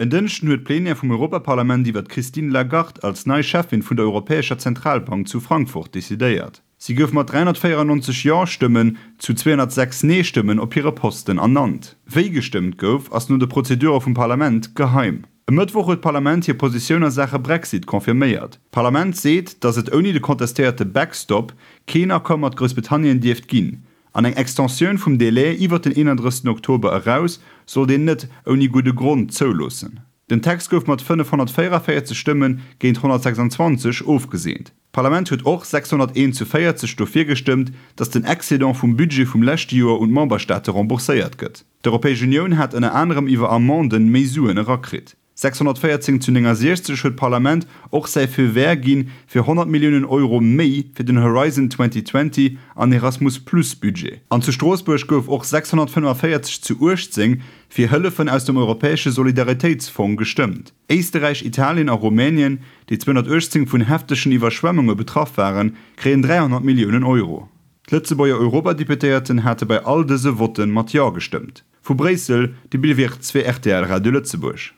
En Dënschden huet d'Plenière vum Europaparlament iwwer d'Christine Lagarde als nei Cheffin vun der Europäescher Zentralbank zu Frankfurt decidéiert. Si gouf mat 394 Jo-Stëmmen zu 206 Nee-Stëmmen op hire Posten ernannt. Wéi gestëmmt gouf, ass no de Prozedure vum Parlament geheim. E Mëttwoch huet d'Parlament hir Positioun a Saache Brexit confirméiert. D'Parlament seet, datt et ouni de contestéierte Backstop keen Accord mat Groussbritannien dierft ginn. An eng Extensioun vum Delai iwwer den 31 Oktober eraus sollt een net ouni gudde Grond zouloossen. Den Text gouf mat 544 Stëmme géint 126 ofgeseent. D'Parlament huet och 601 zu 40 dofir gestëmmt, datt den Excédent vum Budget vum leschte Joer un d'Memberstaate rembourséiert gëtt. D'Europäesch Unioun hat ënner anerem iwwer Amendë méi Suen erakritt. 614 zu 69 huet d'Parlament och säi Feu vert gi fir 100 Milliounen Euro méi fir den Horizon 2020 an Erasmus Plus Budget. An zu Stroossbuerg gouf och 645 zu 18 fir Hëllefen aus dem europäesche Solidaritéitsfong gestëmmt. Éisterräich, Italien a Rumänien, déi 218 vun heftegen Iwwerschwemmunge betraff waren, kréien 300 Milliounen Euro. D'Lëtzebuerger Europadeputéierten hate bei all dëse Votte mat Jo gestëmmt. Vu Bréissel, de Bill Wirtz fir rtl Radio Lëtzebuerg.